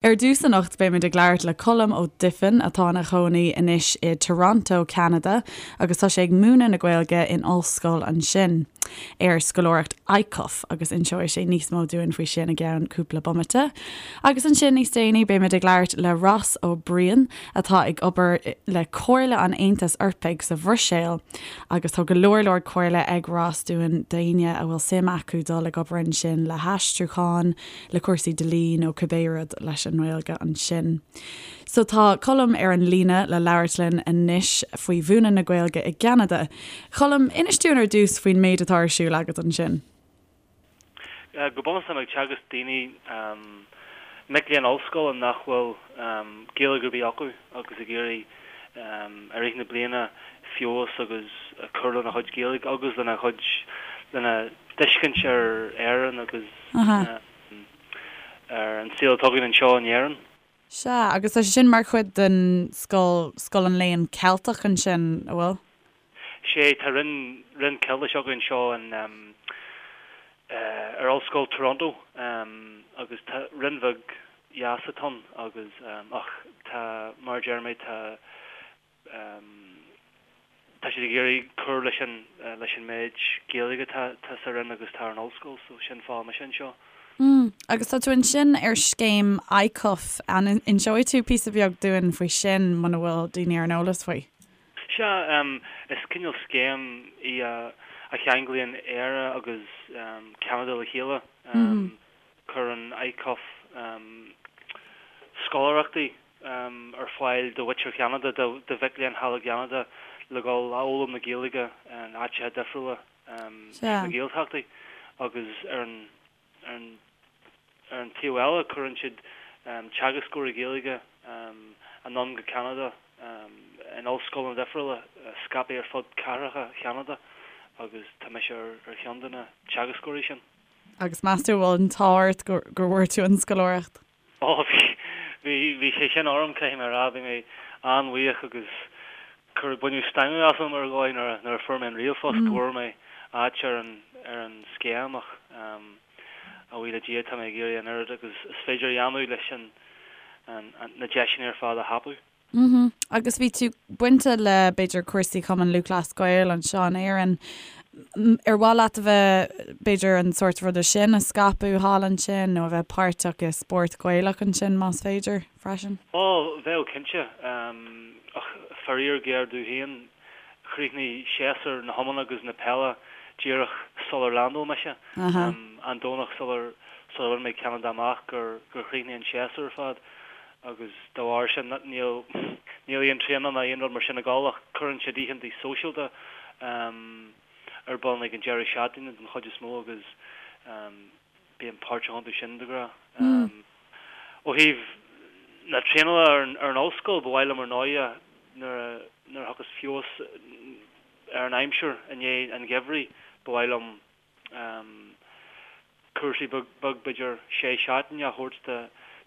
Ar dtús anocht beimid ag labhairt le Colm Ó Duifin atá ina chónaí anois i Toronto, Ceanada agus tá sé ag múineadh na Gaeilge in ollscoil ansin ar scoláireacht ICUF agus inseoidh sé níos mó dúinn faoi sin i gceann cúpla bomaite. Agus ansin níos déanaí beimid ag labhairt le Ross Ó Briain atá ag obair le Comhairle an Aontais Eorpaigh sa Bhruiséil agus tá go leor leor comhairle ag Ross dúinn d'éinne a bhfuil suim acu dul ag obair ansin le haistriúchán, le cúrsaí dlí nó cibé rud leis an nGaeilge ansin. So tá Colm ar an líne le labhairt linn anois faoi mhúineadh na Gaeilge i gCeanada. Colm, inis dúinn ar dtús faoin méid atá ar siúl agat ansin. Go bunúsach táim ag teagasc daoine, mic léinn ollscoile nach bhfuil Gaeilge ar bith acu agus ag iarraidh i rith na bliana feabhas agus cur lena chuid Gaeilge agus lena chuid, lena dtuiscint ar Éirinn agus ar an saol atá againn anseo in Éirinn. Sea, agus tá sé sin mar chuid den scoil, Scoil an Léann Ceilteach ansin, an bhfuil? Sea, tá roinn, roinn Ceiltise againn anseo in, ar Ollscoil Toronto agus tá roinn bheag dheas atá ann agus, ach tá, mar a deir mé, tá, Tá siad ag iarraidh cur leis an leis an méid Gaeilge atá tá sa Roinn agus atá ar an ollscoil so sin fáth mise anseo. Mm. Agus tá tú ansin ar scéim ICUF, an inseoidh tú píosa beag dúinn faoi sin muna bhfuil daoine ar an eolas faoi? Sea, is cineál scéim í a a cheanglaíonn Éire agus Ceanada le chéile. Cuireann ICUF scoláireachtaí ar fáil do mhuintir Cheanada, do mhic léinn thall i gCeanada le dhul a fhoghlaim na Gaeilge in áiteacha difriúla sna Gaeltachtaí agus ar an ar an taobh eile cuireann siad teagascóirí Gaeilge anonn go Ceanada in ollscoileanna difriúla scaipthe ar fud cathracha Cheanada agus tá mise ar cheann de na teagascóirí sin. Agus meas tú an bhfuil an t-ádh ort go bhfuair tú an scoláireacht? Ó, bhí, bhí, bhí sé sin orm, caithfidh mé a rá, bhí mé an-bhuíoch agus cuireadh, baineadh stangadh asam ar dhóigh nuair a, nuair a fuair mé an ríomhphost go bhfuair mé áit ar an, ar an scéim ach a bhuí le Dia tá mé ag iarraidh an oiread agus is féidir a dhéanamh leis an, an, na deiseanna ar fad a thapú. Mhm. Agus bhí tú bainte le, b'fhéidir, cúrsaí Chumann Lúthchleas Gael anseo in Éirinn. Ar mhaith leat a bheith, b'fhéidir, an sórt ruda sin a scaipeadh thall ansin nó a bheith páirteach i spórt Gaelach ansin más féidir, freisin? Ó, bheadh cinnte. Ach faraor géar domh féin, chríochnaigh séasúr na hiomána agus na peile díreach sular leaindeáil mise. An Domhnach sular sular bhain mé Ceanada amach gur chríochnaigh an séasúr ar fad. agus dá bharr sin níl níl aon traenáil ná aon rud mar sin ag dul ach cuireann siad oícheanta sóisialta ar bun ag an deireadh seachtaine den chuid is mó agus bím páirteach iontu sin de ghnáth. Ó thaobh na traenála ar an ar an ollscoil ba mhaith liom ar ndóighe nuair a nuair a thiocfas feabhas ar an aimsir i ndiaidh an gheimhridh ba mhaith liom cúrsaí beag, b'fhéidir sé seachtaine a thabhairt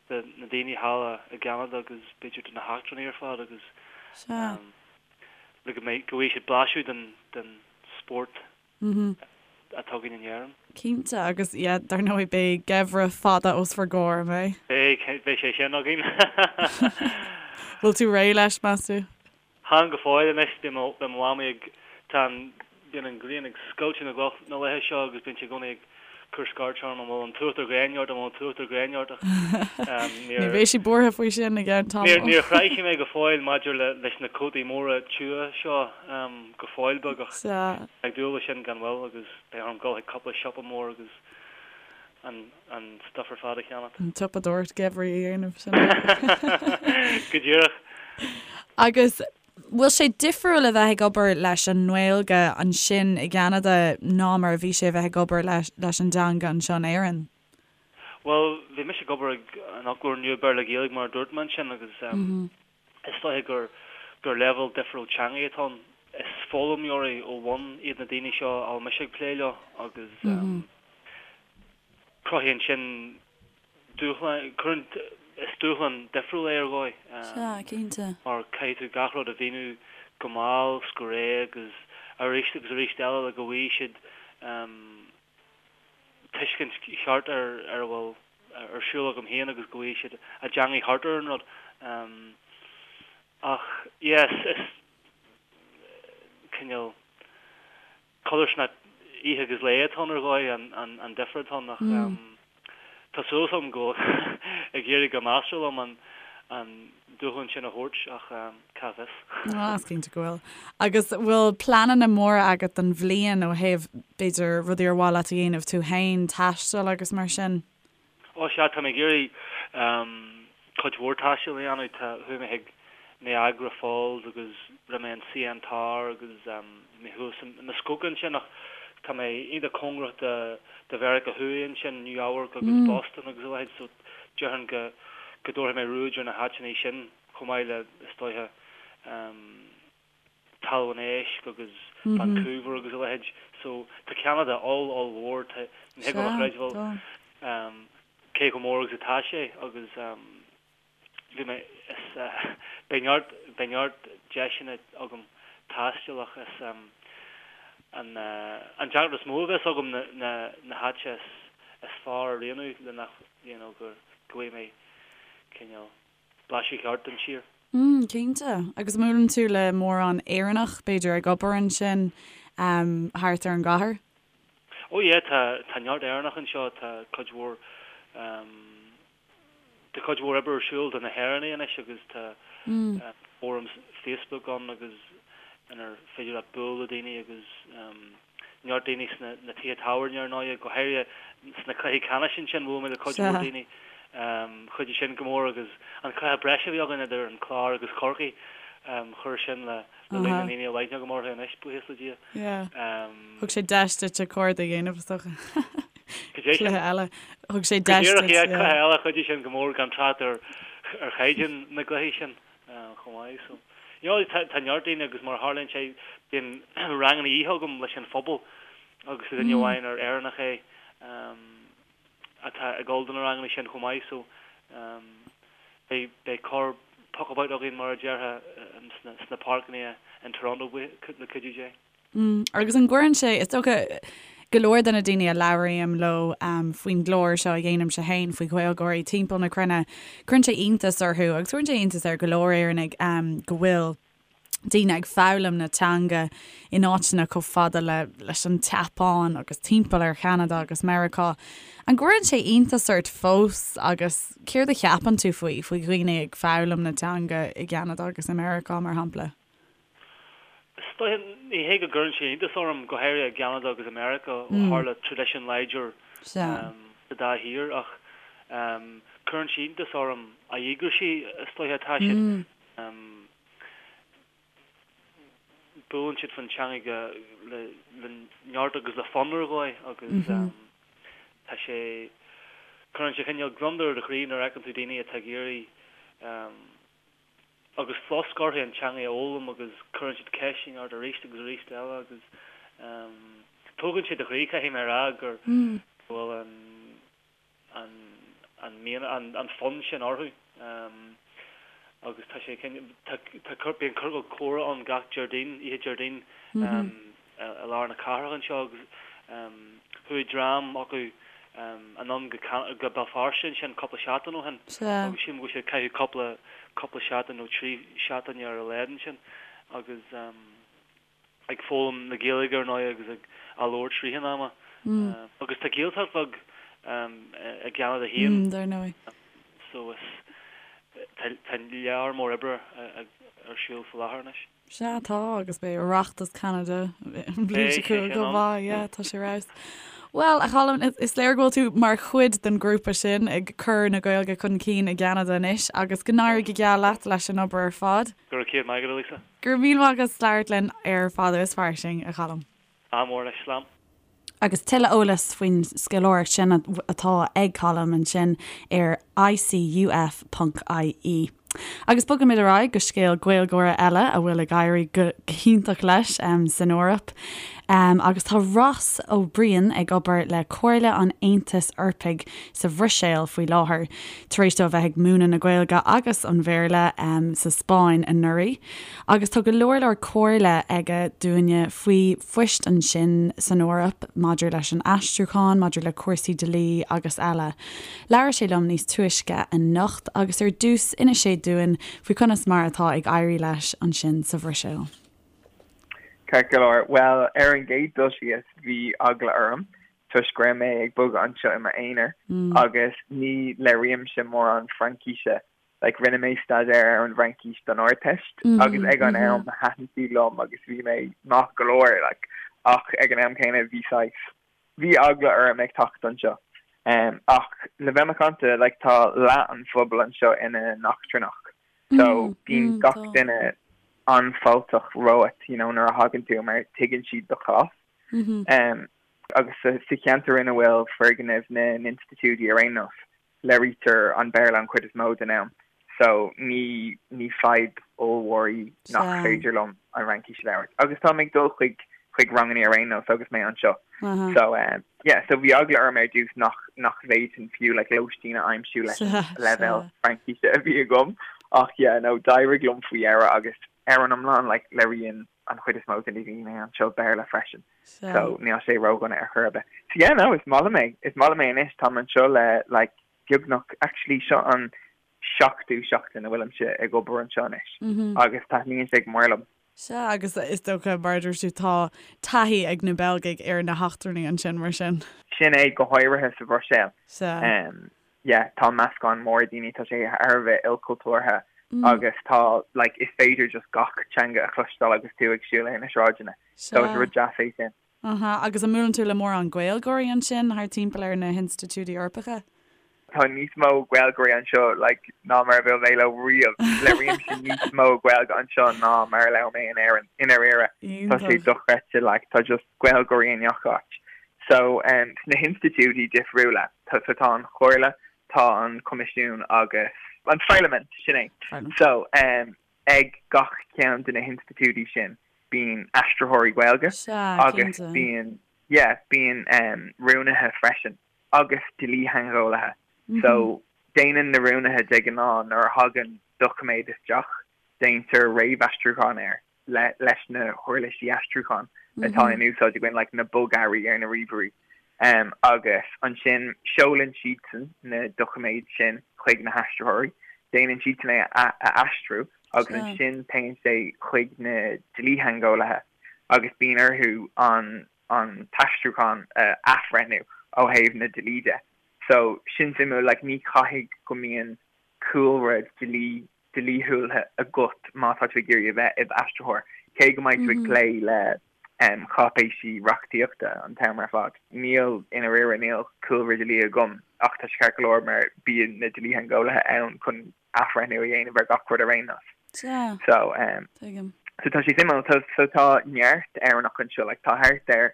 do na daoine thall i gCeanada agus b'fhéidir do na heachtrannaigh ar fad agus le go mbeidh, go bhfaighidh siad blaiseadh den, den spórt atá againn in Éirinn. Cinnte, agus yeah, dar ndóigh beidh geimhreadh fada os bhur gcomhair, an mbeidh? Beidh, beidh sé sin againn. Bhfuil tú réidh leis, meas tú? Chan go fóill anois, bíonn mo mhamaí ag, tá an, bíonn an ghrian ag scoilteadh na gcloch na laetha seo agus bíonn sí i gcónaí ag cur scairt orm an bhfuil an t-uachtar gréine ort, an bhfuil an t-uachtar gréine ort ach níor. Ní bheidh sí buartha faoi sin i gceann tamaill. Níor chroith sí mé go fóill maidir le, leis na cótaí móra tiubha seo go fóill beag ach ag dúil leis sin gan mhoill agus beidh orm dul chuig cúpla siopa mór agus an an stuff ar fad a cheannacht. An tsiopadóireacht geimhridh a dhéanamh, sin é. Go díreach. Agus bhfuil sé difriúil a bheith ag obair leis an nGaeilge ansin i gCeanada ná mar a bhí sé a bheith ag obair leis an dteanga anseo in Éirinn? Bhuel, bhí mise ag obair ag an fhoclóir nua Béarla-Gaeilge mar a dúirt mé ansin agus is dóiche gur gur leibhéal difriúil teanga atá ann. Is foghlaimeoirí ó bhun iad na daoine seo a bhfuil mise ag plé leo agus Cruthaíonn sin dúshlán, cuireann, is dúshlán difriúil é ar dhóigh. Sea, cinnte. Mar caithfidh tú gach rud a mhíniú go mall 's go réidh agus arís agus arís eile le go bhfaighidh siad tuiscint cheart ar ar a bhfuil. ar siúl agam féin agus go bhfaighidh siad a dteangaidh thart ar an rud. Ach yeah, is cineál codarsnacht oíche agus lae atá ann ar dhóigh, an difear atá ann ach tá súil agam go bhfuil ag éirí go measartha liom an dúshlán sin a thabhairt ach cá bhfios. Ah, is cinnte go bhfuil. Agus bhfuil pleananna móra agat don bhliain ó thaobh, b'fhéidir, rudaí ar mhaith leat a dhéanamh tú féin, taisteal agus mar sin? Ó sea, tá mé ag iarraidh cuid mhór taistil a dhéanamh. Tá, chuaigh mé chuig Niagara Falls agus rinne mé an CN Tower agus bhí mé thuas i Muskoka ansin ach tá mé iontach cóngarach do do Mheiriceá Thuaidh ansin, New Eabharc agus Boston agus a leithéid so déarfainn go go dtabharfaidh mé ruaig ar na háiteanna sin chomh maith le, is dóiche, Talamh an Éisc agus Vancouver agus a leithéid. So tá Ceanada oll ollmhór, tá, ní thig liom a chreidbheáil cé chomh mór agus atá sé agus bhí mé, is beidh neart, beidh neart deiseanna agam taisteal ach is an an deacracht is mó a bheas agam na na na háite is is fearr a roghnú le nach, you know, go go bhfaighidh mé cineál blaiseadh ceart den tír. Mm, cinnte. Agus an mbuaileann tú le mórán Éireannach, b'fhéidir, ag obair ansin thart ar an gcathair? Oh yeah, tá, tá neart Éireannach anseo, tá cuid mhór, tá cuid mhór oibre ar siúl do na hÉireannaigh anois agus tá fóram Facebook ann agus inar féidir leat bualadh le daoine agus neart daoine sna na tithe tábhairne ar ndóighe, go háirithe sna cluichí ceannais ansin, bhuail mé le cuid mhór daoine. Chuidigh sin go mór agus an cluiche breise a bhí againn idir an Clár agus Corcaigh, chuir sin le líon na ndaoine a bhfuil aithne agam orthu anois, buíochas le Dia. Thug sé deis duit cairde a dhéanamh, is dócha. Cluiche eile. Thug sé deis duit. Go díreach, yeah, cluiche eile, chuidigh sin go mór gan trácht ar chaighdeán na gcluichí sin. chomh maith. So, you know, tá, tá neart daoine agus mar a tharlaíonn sé, bíonn ranganna oíche agam leis an phobal agus tá duine amháin ar Éireannach é atá ag dul do na ranganna sin chomh maith. So, beidh, beidh corr puckabout againn mar a déarfá sna, sna páirceanna in Toronto le cuidiú Dé. Agus an gcuireann sé, is dócha, go leor de na daoine a labhraím leo faoin gclár seo a dhéanaimse féin faoi Ghaeilgeoirí timpeall na cruinne, cuireann sé iontas orthu agus cuireann sé iontas ar go leor Éireannaigh go bhfuil daoine ag foghlaim na teanga in áiteanna chomh fada le leis an tSeapáin agus timpeall ar Cheanada agus Meiriceá. An gcuireann sé iontas ort fós agus céard a cheapann tú faoi, faoi dhaoine ag foghlaim na teanga i gCeanada agus i Meiriceá mar shampla? Is dóiche, ní hé go gcuireann sé iontas orm, go háirithe i gCeanada agus i Meiriceá, ó tharla traidisiún láidir sa dá thír, ach cuireann sé iontas orm a dhíograisí is dóiche atá siad. Buaileann siad faoin teanga le neart agus le fonn ar dhóigh agus tá sé, cuireann sé cineál gliondar ar do chroí nuair a fheiceann tú daoine atá ag iarraidh agus flosc orthu an teanga a fhoghlaim agus cuireann siad ceisteanna ort arís agus arís eile agus tógann sé do chroí, caithfidh mé a rá, gur go bhfuil an an an mian an an fonn sin orthu agus tá sé tá tá bíonn ciorcal comhrá ann gach Déardaoin, oíche Déardaoin i lár na cathrach anseo agus chuaigh dream acu anonn go go Béal Feirste ansin cúpla seachtain ó shin agus sílim go bhfuil siad ag caitheamh cúpla cúpla seachtain nó 3 seachtaine ar a laghad ansin agus ag foghlaim na Gaeilge ar ndóigh agus ag á labhairt i rith an ama. Agus tá Gaeltacht bheag i gCeanada féin. Dar ndóigh. So is tá tá lear mór oibre ar siúl faoi láthair anois. Sea, tá, agus beidh Oireachtas Cheanada an bhliain seo chugainn chomh maith, yeah, tá sé ar fheabhas. Bhuel, a Cholm, is léir go bhfuil tú mar chuid den ghrúpa sin ag cur na Gaeilge chun cinn i gCeanada anois agus go n-éirí go geal leat leis an obair ar fad. Go raibh céad maith agat, a Lisa. Go raibh míle maith agat as labhairt linn ar Fada is Fairsing, a Cholm. Ádh mór leis, slán. Agus tuilleadh eolais faoin scoláireacht sin atá ag Colm ansin ar icuf.ie. Agus bogaimid ar aghaidh go scéal Gaeilgeora eile a bhfuil ag éirí go hiontach leis san Eoraip. Agus tá Ross Ó Briain ag obair le Comhairle an Aontais Eorpaigh sa Bhruiséil faoi láthair, tar éis dó a bheith ag múineadh na Gaeilge agus an Bhéarla sa Spáinn anuraidh. Agus tá go leor leor comhairle aige dúinne faoi phoist ansin san Eoraip maidir leis an aistriúchán, maidir le cúrsaí dlí agus eile. Labhair sé liom níos túisce anocht agus ar dtús d'inis sé dúinn faoi conas mar atá ag éirí leis ansin sa Bhruiséil. Ceart go leor. Bhuel, ar an gcéad dul síos, bhí eagla orm toisc go raibh mé ag bogadh anseo i m'aonar agus ní labhraímse mórán Fraincíse. Like, rinne mé staidéar ar an bhFraincis don Ardteist agus ag an am thaitin sí liom agus bhí mé maith go leor, like, ach ag an am céanna bhí saghas, bhí eagla orm ag teacht anseo. Ach le bheith macánta, like, tá leath an phobail anseo ina n-eachtrannach so bíonn gach duine an-fháilteach romhat, you know, nuair a thagann tú mar tuigeann siad do chás. Agus sa cheantar ina bhfuil foirgnimh na n-institiúidí ar aon nós, labhraítear an Béarla an chuid is mó den am so ní ní fadhb ollmhór í nach féidir liom an Fhraincis a labhairt. Agus táim ag dul chuig chuig ranganna ar aon nós agus mé anseo. So um, yeah, so bhí eagla orm ar dtús nach nach bhféadfainn fiú like lóistín a aimsiú leis an leibhéal Fraincise a bhí agam. Ach yeah, no, d'éirigh liom faoi dheireadh agus ar an iomlán like labhraíonn an chuid is mó de na daoine anseo Béarla freisin. So níl sé ródhona ar chor ar bith. So yeah, no, is maith liom é. Is maith liom é anois. Táim anseo le like beagnach, actually seo an seachtú seachtain a bhfuilimse ag obair anseo anois agus taitníonn sé go mór liom. Sea, agus is dócha, mar a dúirt tú, tá taithí ag na Beilgigh ar na heachtrannaigh ansin, mar sin. Sin é, go háirithe sa Bhruiséil. Sea. Yeah, tá meascán mór daoine, tá sé thar a bheith ilchultúrtha agus tá, like, is féidir just gach teanga a chloisteáil agus tú ag siúl ar na sráideanna. So is rud deas é sin. Aha, agus an mbuaileann tú le mórán Gaeilgeoirí ansin thart timpeall ar na hinstitiúidí Eorpacha? Tá níos mó Gaeilgeoirí anseo like ná mar a bhuail mé leo riamh. Labhraímse níos mó Gaeilge anseo ná mar a labhair mé in Éirinn, i ndáiríre. Tá sé dochreidte like tá just Gaeilgeoirí i ngach áit. So um sna hinstitiúidí difriúla, tá so tá an Chomhairle, tá an Coimisiún agus an Pharlaimint, sin é. So um ag gach ceann de na hinstitiúidí sin bíonn aistritheoirí Gaeilge agus bíonn yeah bíonn um rúnaithe freisin agus dlítheangeolaithe. So déanann na rúnaithe de ghnáth nuair a thagann doiciméad isteach déantar réamhaistriúchán air. le leis na huirlisí aistriúcháin atá in úsáid againn, like na bogearraí ar na ríomhairí. Agus ansin seolann siadsan na doiciméid sin chuig na haistritheoirí, déanann siadsan é a aistriú agus ansin téann sé chuig na dlítheangeolaithe agus bíonn orthu an an t-aistriúchán a athbhreithniú ó thaobh na dlí de. So sin suimiúil, like ní chaithfidh go mbíonn cúlra dlí dlíthiúil agat má tá tú ag iarraidh a bheith i d'aistritheoir, cé go mbeidh tú ag plé le cáipéisí reachtaíochta an t-am ar fad. Níl, i ndáiríre, níl cúlra dlí agam ach tá sé ceart go leor mar bíonn na dlítheangeolaithe ann chun athbhreithniú a dhéanamh ar gach rud ar aon nós. Sea, So, so tá sé suimiúil. So, so tá neart Éireannach anseo, like tá thart ar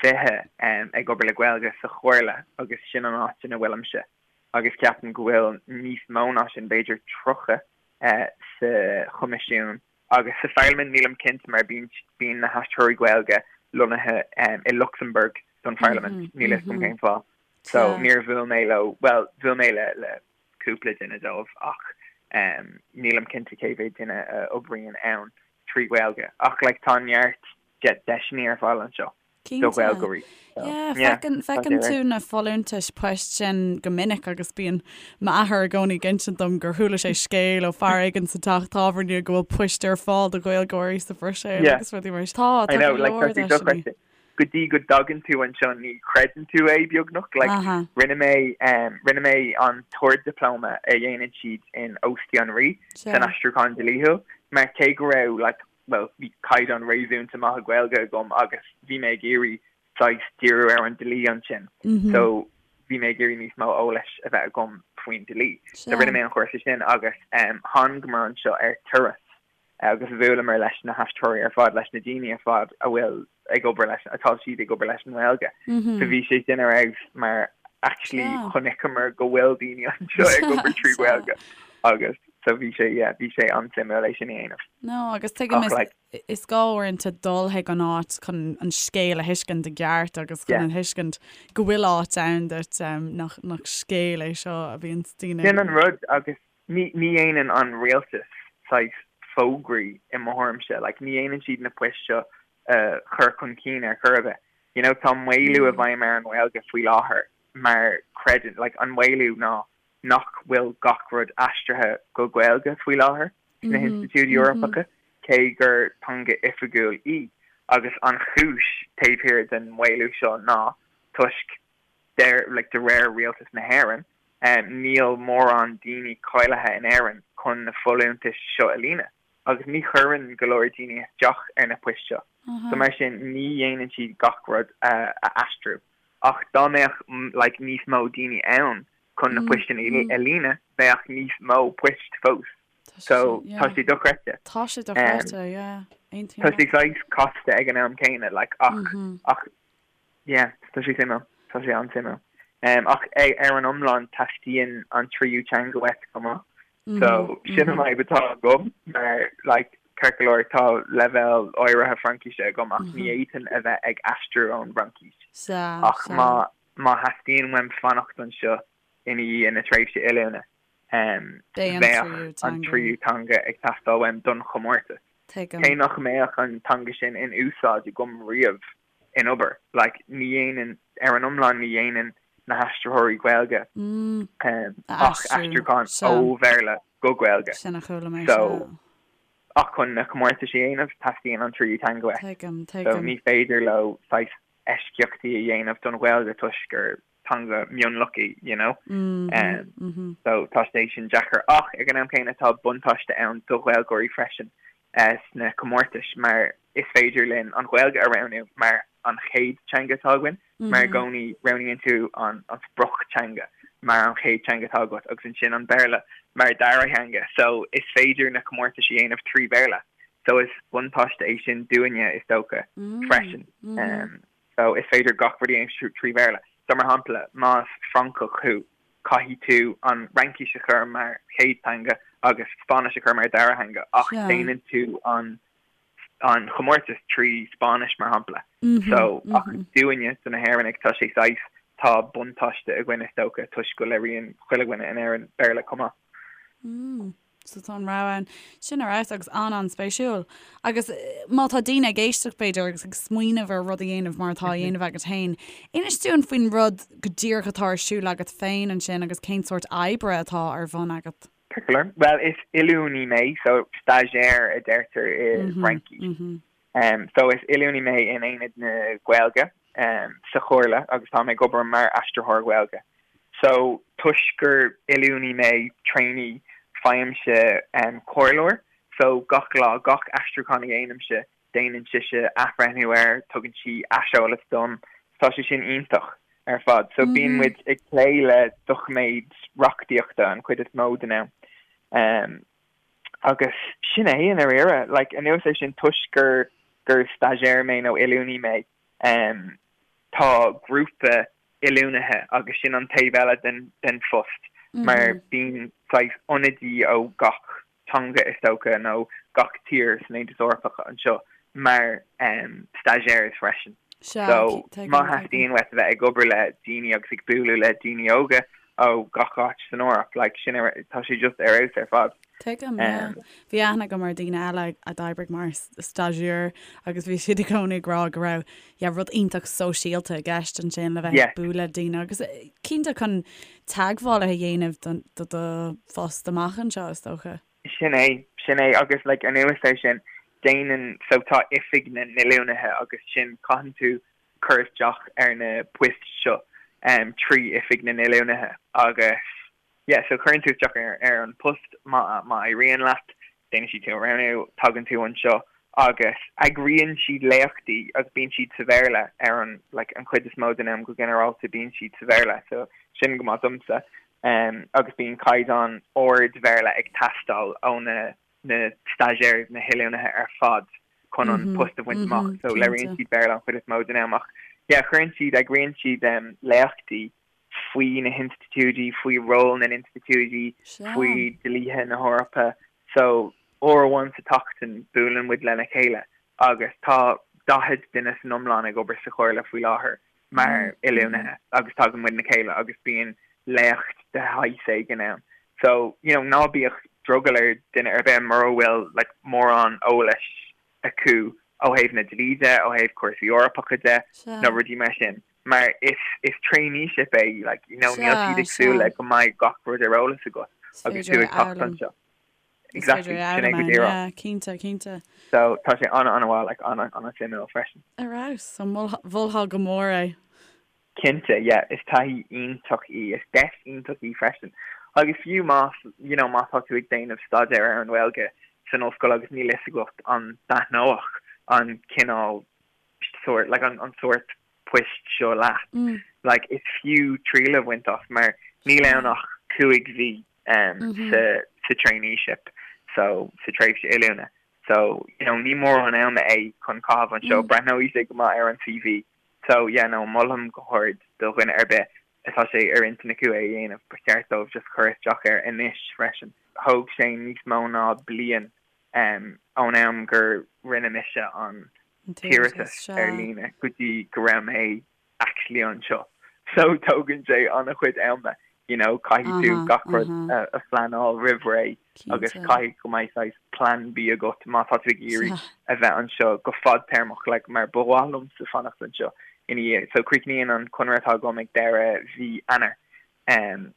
20 ag obair le Gaeilge sa Chomhairle agus sin an áit ina bhfuilimse. agus ceapaim go bhfuil níos mó ná sin, b'fhéidir 30 sa Choimisiún agus sa Pharlaimint, nílim cinnte mar bíonn bíonn na haistritheoirí Gaeilge lonnaithe i Lucsamburg don Pharlaimint, níl a fhios agam cén fáth. So níor bhuail mé leo, bhuel, bhuail mé le le cúpla duine dóibh ach nílim cinnte cé mhéad duine a oibríonn ann trí Ghaeilge. Ach like tá neart deiseanna ar fáil anseo. do Cinnte. Ghaeilgeoirí. So, Yeah, yeah, feiceann, tá sé feiceann ar. tú na folúntais poist sin go minic agus bíonn m'athair i gcónaí ag insint dom gur chuala sé scéal ó fear éigin sa teach tábhairne go bhfuil poist ar fáil do Ghaeilgeoirí sa Bhruiséil Yeah. agus rudaí mar sin. Tá, I tá know, go like, leor tá sé deiseanna. dochreidte. Go dtí go dtagann tú anseo ní chreideann tú é beagnach. Like, Aha. rinne mé, um, rinne mé an t-ard-dioplóma a dhéanann siad in Óstaí an Rí Sea. san aistriúchán dlíthiúil mar cé go raibh, like, bhuel, bhí caighdeán réasúnta maith Gaeilge agam agus bhí mé ag iarraidh saghas díriú ar an dlí ansin. So bhí mé ag iarraidh níos mó eolais a bheith agam faoin dlí. So rinne mé an chúrsa sin agus thángamar anseo ar turas agus bhuaileamar leis na haistritheoirí ar fad, leis na daoine ar fad a bhfuil ag obair leis, atá siad ag obair leis an nGaeilge. So bhí sé sin ar fheabhas mar actually chonaiceamar go bhfuil daoine anseo ag obair trí Ghaeilge agus. So bhí sé, yeah, bhí sé an-suimiúil é sin a dhéanamh. No, agus tuigim is, like, is gá uaireanta dul chuig an áit chun an scéal a thuiscint i gceart agus chun yeah. a thuiscint go bhfuil áit ann duit um, nach, nach scéal é seo a bhíonn daoine. Sin an rud agus ní, ní dhéanann an rialtas saghas fógraí i mo thuairimse, like, ní dhéanann siad na poist seo a uh, chur chun cinn ar chor ar bith. You know, tá maolú i mm. bhfeidhm ar an nGaeilge faoi láthair mar creideann, like, an maolú ná nach bhfuil gach rud aistrithe go Gaeilge faoi láthair sna hinstitiúidí Eorpacha, cé gur teanga oifigiúil í, agus an chúis taobh thiar den mhaolú seo ná toisc, like, de réir Rialtas na hÉireann, níl mórán daoine cáilithe in Éirinn chun na folúntais seo a líonadh, agus ní chuireann go leor daoine isteach ar na poist seo, so mar sin ní dhéanann siad gach rud a aistriú. Ach dá mbeadh like níos mó daoine ann chun na poist sin a líonadh, bheadh níos mó poist fós. So tá sé dochreidte. Tá sé dochreidte, yeah. Aontaím Tá sé saghas casta ag an am céanna, like ach ach yeah, tá sé suimiúil. Tá sé an-suimiúil. Ach ar an iomlán teastaíonn an tríú teanga uait chomh maith. So sin an fhadhb atá agam mar like ceart go leor tá leibhéal áirithe Fraincíse agam ach ní fhéadfainn a bheith ag aistriú ón bhFraincis. Ach má má theastaíonn uaim fanacht anseo ina dhiaidh na tréimhse oiliúna bheadh an tríú teanga ag teastáil uaim don chomórtas. Cé nach mbeadh an teanga sin in úsáid agam riamh in obair. Like, ní dhéanann, ar an iomlán ní dhéanann na haistritheoirí Gaeilge ach aistriúchán ó Bhéarla go Gaeilge. Sin a chuala mé, So, ach chun na comórtais a dhéanamh, teastaíonn an tríú teanga uait. Tuigim, tuigim. So, ní féidir leo saghas eisceachtaí a dhéanamh don Ghaeilge toisc gur teanga mionlach í, you know. So tá sé sin deacair. Ach ag an am céanna tá buntáiste ann do Ghaeilgeoirí freisin sna comórtais mar is féidir linn an Ghaeilge a roghnú mar an chéad teanga atá againn, mar i gcónaí roghnaíonn tú an sprioctheanga mar an chéad teanga atá agat agus ansin an Béarla mar dara theanga. So is féidir na comórtais a dhéanamh trí Bhéarla. So is buntáiste é sin dúinne is dócha freisin. So is féidir gach rud a dhéanamh trí Bhéarla. So mar shampla, más Francach thú, caithfidh tú an Fhraincis a chur mar chéad teanga agus Spáinnis a chur mar dara theanga ach déanann tú an an chomórtas trí Spáinnis mar shampla. So ach dúinne, do na hÉireannaigh, tá sé saghas, tá buntáiste againn is dócha toisc go labhraíonn chuile dhuine in Éirinn Béarla chomh maith. So tá an rogha ann. Sin ar fheabhas agus an-an-spéisiúil. Agus má tá daoine ag éisteacht b'fhéidir agus ag smaoineamh ar rud a dhéanamh mar atá á dhéanamh agat féin, inis dúinn faoin rud go díreach atá ar siúl agat féin ansin agus cén sórt oibre atá ar bhun agat. Ceart go leor. Bhuel, is oiliúnaí mé, so stagiaire a deirtear i bhFraincis. So is oiliúnaí mé in Aonad na Gaeilge sa Chomhairle agus tá mé ag obair mar aistritheoir Gaeilge. So toisc gur oiliúnaí mé, trainee, faighimse comhairleoir. So gach lá, gach aistriúchán a dhéanaimse, déanann sise athbhreithniú air, tugann sí aiseolas dom. Tá sé sin iontach ar fad. So bíonn muid ag plé le doiciméid reachtaíochta an chuid is mó den am. Agus sin é i ndáiríre. Like, anuas air sin, toisc gur gur stagiaire mé nó oiliúnaí mé, em, tá grúpa oiliúnaithe agus sin an taobh eile den den phost mar bíonn saghas ionadaí ó gach teanga is dócha nó gach tír san Aontas Eorpach anseo mar em, stagiaires freisin. Sea, So, tuigim, má tuigim. theastaíonn uait a bheith ag obair le daoine agus ag bualadh le daoine óga ó gach áit san Eoraip, like, sin ar, tá sé just ar fheabhas ar fad. Tuigim, yeah. Um, Bhí aithne agam ar daoine eile a d'oibrigh mar stagiaire agus bhí siad i gcónaí ag rá go raibh, yeah, rud iontach sóisialta i gceist ansin le bheith Yeah. ag bualadh le daoine agus eh, cinnte chun teagmhálaithe a dhéanamh don, do do phost amach anseo, is dócha. Sin é, sin é agus like anuas air sin déanann, so tá oifig na n-oiliúnaithe agus sin caitheann tú cur isteach ar na poist seo em trí oifig na n-oiliúnaithe agus yeah so cuireann tú isteach ar ar an post má má éiríonn leat déanann siad tú a roghnú, tagann tú anseo agus eagraíonn siad léachtaí agus bíonn siad sa Bhéarla ar an like an chuid is mó den am go ginearálta bíonn siad sa Bhéarla so sin go maith domsa. agus bíonn caighdeán ard Bhéarla ag teastáil ó na na stagiaires, na hoiliúnaithe ar fad chun an post a bhaint amach. So labhraíonn siad Béarla an chuid is mó den am ach yeah cuireann siad, eagraíonn siad léachtaí faoi na hinstitiúidí, faoi ról na n-institiúidí, faoi dlíthe na hEorpa. So, uair amháin sa tseachtain buaileann muid lena chéile agus tá 40 duine san iomlán ag obair sa Chomhairle faoi láthair mar oiliúnaithe agus tagann muid le chéile agus bíonn léacht de shaghas éigin ann. So, you know, ná bíodh drogall ar duine ar bith mura bhfuil like mórán eolais acu ó thaobh na dlí de, ó thaobh cúrsaí Eorpacha de nó rudaí mar sin. Mar is is traineeship é, like, you know, níl siad ag súil le go mbeidh gach rud ar eolas agat agus tú ag teacht anseo. Exactly, sin é go díreach. Yeah, cinnte, cinnte. So tá sé an-an-mhaith, like, an-an-suimiúil freisin. Ar fheabhas, so mholfá go mór é. Cinnte, yeah, is taithí iontach í, is deis iontach í freisin. Agus fiú más, you know, má tá tú ag déanamh staidéar ar an nGaeilge san ollscoil agus níl fhios agat an dtaitneodh an cineál sórt, like, an, an sórt poist seo leat, like, is fiú triail a bhaint as mar níl ann ach 5 mhí um, sa, sa traineeship, so, sa tréimhse oiliúna. So, you know, ní mórán ama é chun caitheamh anseo, breathnóidh sé go maith ar an CV. So, yeah, no, molaim go hard do dhuine ar bith atá sé ar intinn acu é a dhéanamh, ba cheart dóibh just cur isteach air anois freisin. Thóg sé níos mó ná bliain um, ón am gur rinne mise an t-iarratas ar líne go dtí go raibh mé actually anseo. So tógann sé an-chuid ama, you know, caithfidh tú gach rud a phleanáil roimh ré agus caithfidh go mbeidh saghas plan B agat má tá tú ag iarraidh a bheith anseo go fadtéarmach, like, mar ba mhaith liomsa fanacht anseo ina dhiaidh. So críochnaíonn an conradh atá agam ag deireadh mhí Eanáir. Um,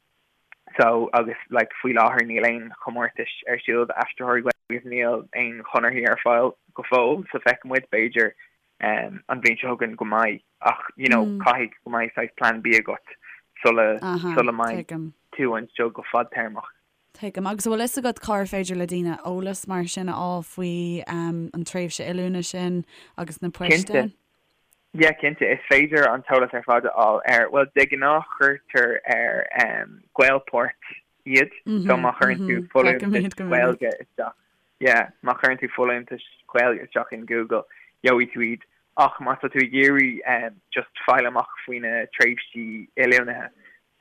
so agus like faoi láthair níl aon chomórtais ar siúl d'aistritheoirí Gaeilge agus níl aon chonarthaí ar fáil go fóill so feicfidh muid b'fhéidir um, an bhliain seo chugainn go mbeidh ach you know mm. caithfidh go mbeidh saghas plan B agat sula sula mbeidh tú anseo go fadtéarmach. Tuigim. Agus an bhfuil fhios agat cár féidir le daoine eolas mar sin a fháil faoi um, an tréimhse oiliúna sin agus na poist Cinnte. Yeah, cinnte. Is féidir an t-eolas ar fad a fháil ar, bhuel, de ghnáth cuirtear ar um, Gaelport iad, so má chuireann tú folúntais Gaeilge isteach, yeah, má chuireann tú folúntais Gaeilge isteach in Google, gheobhaidh tú iad. Ach má tá tú ag iarraidh um, just fáil amach faoi na tréimhsí oiliúnaithe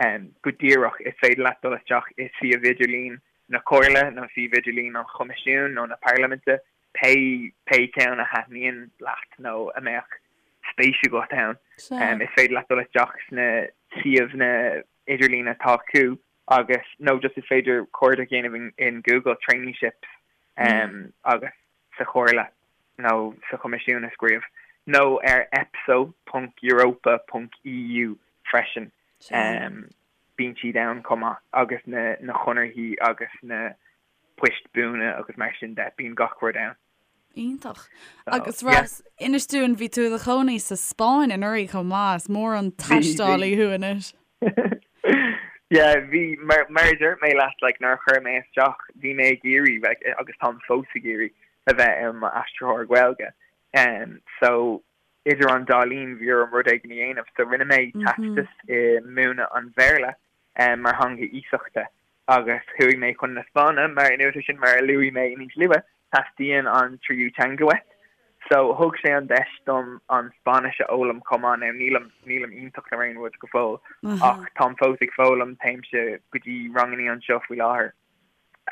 um, go díreach, is féidir leat dul isteach i suíomh idirlín na Comhairle nó suíomh idirlín an Choimisiúin nó na Parlaiminte pé pé ceann a thaitníonn leat nó a mbeadh spéis agat ann. Is féidir leat dul isteach sna suíomhanna idirlín atá acu agus nó just is féidir cuardach a dhéanamh in in Google traineeships agus sa Chomhairle nó sa Choimisiún a scríobh nó ar epso ponc europa ponc eu freisin. Bíonn siad ann chomh maith agus na na conarthaí agus na poist buana agus mar sin de, bíonn gach rud ann. Iontach. Agus Ross, inis dúinn, bhí tú i do chónaí sa Spáinn anuraidh chomh maith, is mór an taistealaí thú anois. Yeah, bhí, mar, mar a dúirt mé leat, like, nuair a chuir mé isteach, bhí mé ag iarraidh, like, agus táim fós ag iarraidh, a bheith i m'aistritheoir Gaeilge. Um, so, idir an dá linn, bhí orm rud éigin a dhéanamh, so rinne mé teastas i múineadh an Bhéarla um, mar theanga iasachta. Agus chuaigh mé chun na Spáinne, mar anuas air sin, mar a luaigh mé níos luaithe, teastaíonn an tríú teanga uait. So, thug sé an deis dom an Spáinnis a fhoghlaim chomh maith. Now, nílim, nílim iontach nó aon rud go fóill, ach táim fós ag foghlaim, téimse go dtí rangannaí anseo faoi láthair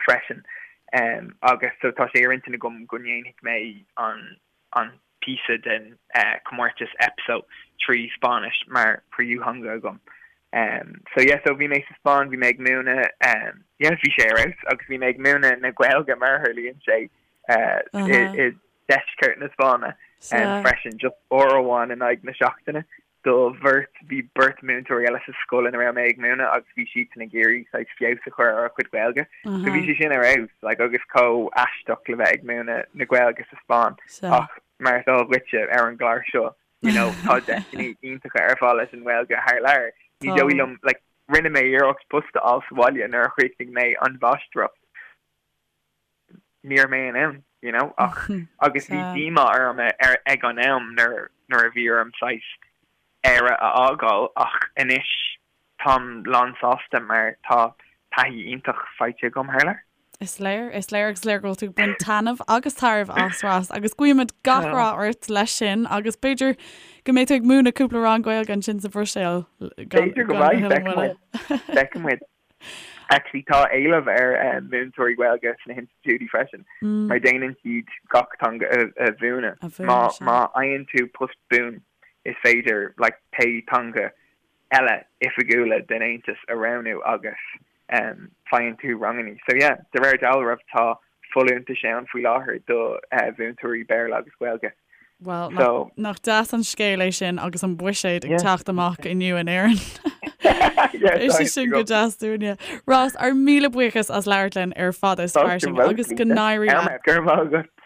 freisin. Agus so tá sé ar intinn agam go ndéanfaidh mé an, an píosa den chomórtas EPSO trí Spáinnis mar thríú theanga agam. So yeah, so bhí mé sa Spáinn, bhí mé ag múineadh, yeah, bhí sé ar fheabhas agus bhí mé ag múineadh na Gaeilge mar a tharlaíonn sé i deisceart na Spáinne freisin, just uair amháin in aghaidh na seachtaine. do bheirt, bhí beirt múinteoirí eile sa scoil ina raibh mé ag múineadh agus bhí siadsan ag iarraidh saghas feabhas a chur ar a gcuid Gaeilge. So bhí sé sin ar fheabhas, like, agus chomh aisteach le bheith ag múineadh na Gaeilge sa Spáinn ach mar is eol dhuitse ar an gclár seo, you know, tá deiseanna iontacha ar fáil leis an nGaeilge thar lear. Ní dóigh liom, like, rinne mé iarracht post a fháil sa bhaile nuair a chríochnaigh mé an mháistreacht. ní raibh mé in ann, you know, ach agus bhí díomá orm ar ag an am nuair nuair a bhí orm saghas Éire a fhágáil ach anois táim lán sásta mar tá taithí iontach faighte agam thar lear. Is léir, is léir agus is léir go bhfuil tú ag baint taitneamh agus tairbhe as Ross agus guímid gach rath ort leis sin agus b'fhéidir go mbeidh tú ag múineadh cúpla rang Gaeilge ansin sa Bhruiséil B'fhéidir go mbeidh, feicfidh muid, feicfidh muid. Actually tá éileamh ar múinteoirí Gaeilge sna hinstitiúidí freisin mar déanann siad gach teanga a mhúineadh. Má fhaigheann tú post buan is féidir like pé teanga eile oifigiúla den Aontas a roghnú agus faigheann tú rangannaí. So yeah, de réir dealraimh tá folúntais ann faoi láthair do mhúinteoirí Béarla agus Gaeilge. Bhuel, So. nach deas an scéal é sin agus an buiséad ag teacht amach inniu in Éirinn. Beidh sé sin go deas dúinne. Ross, ár míle buíochas as labhairt linn ar Fada is Fairsing agus go n-éirí leat. Go raibh maith agat.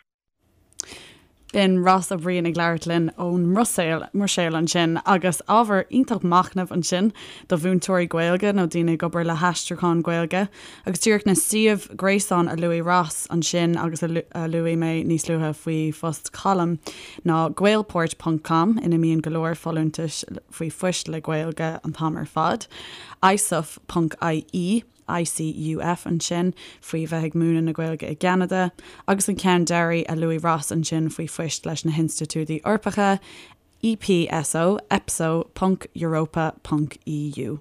B'in Ross Ó Briain ag labhairt linn ón mBruiséil, mBruiséil ansin agus ábhar iontach machnaimh ansin do mhúinteoirí Gaeilge nó daoine ag obair le haistriúchán Gaeilge. Agus díreach na suímh gréasáin a luaigh Ross ansin agus a luaigh mé níos luaithe faoi phost Colm ná gaelport ponc com ina mbíonn go leor folúntais faoi phoist le Gaeilge an t-am ar fad, icuf ponc ie, ICUF ansin faoi bheith ag múineadh na Gaeilge i gCeanada, agus an ceann deiridh a luaigh Ross ansin faoi phoist leis na hinstitiúidí Eorpacha, EPSO, epso ponc europa ponc EU.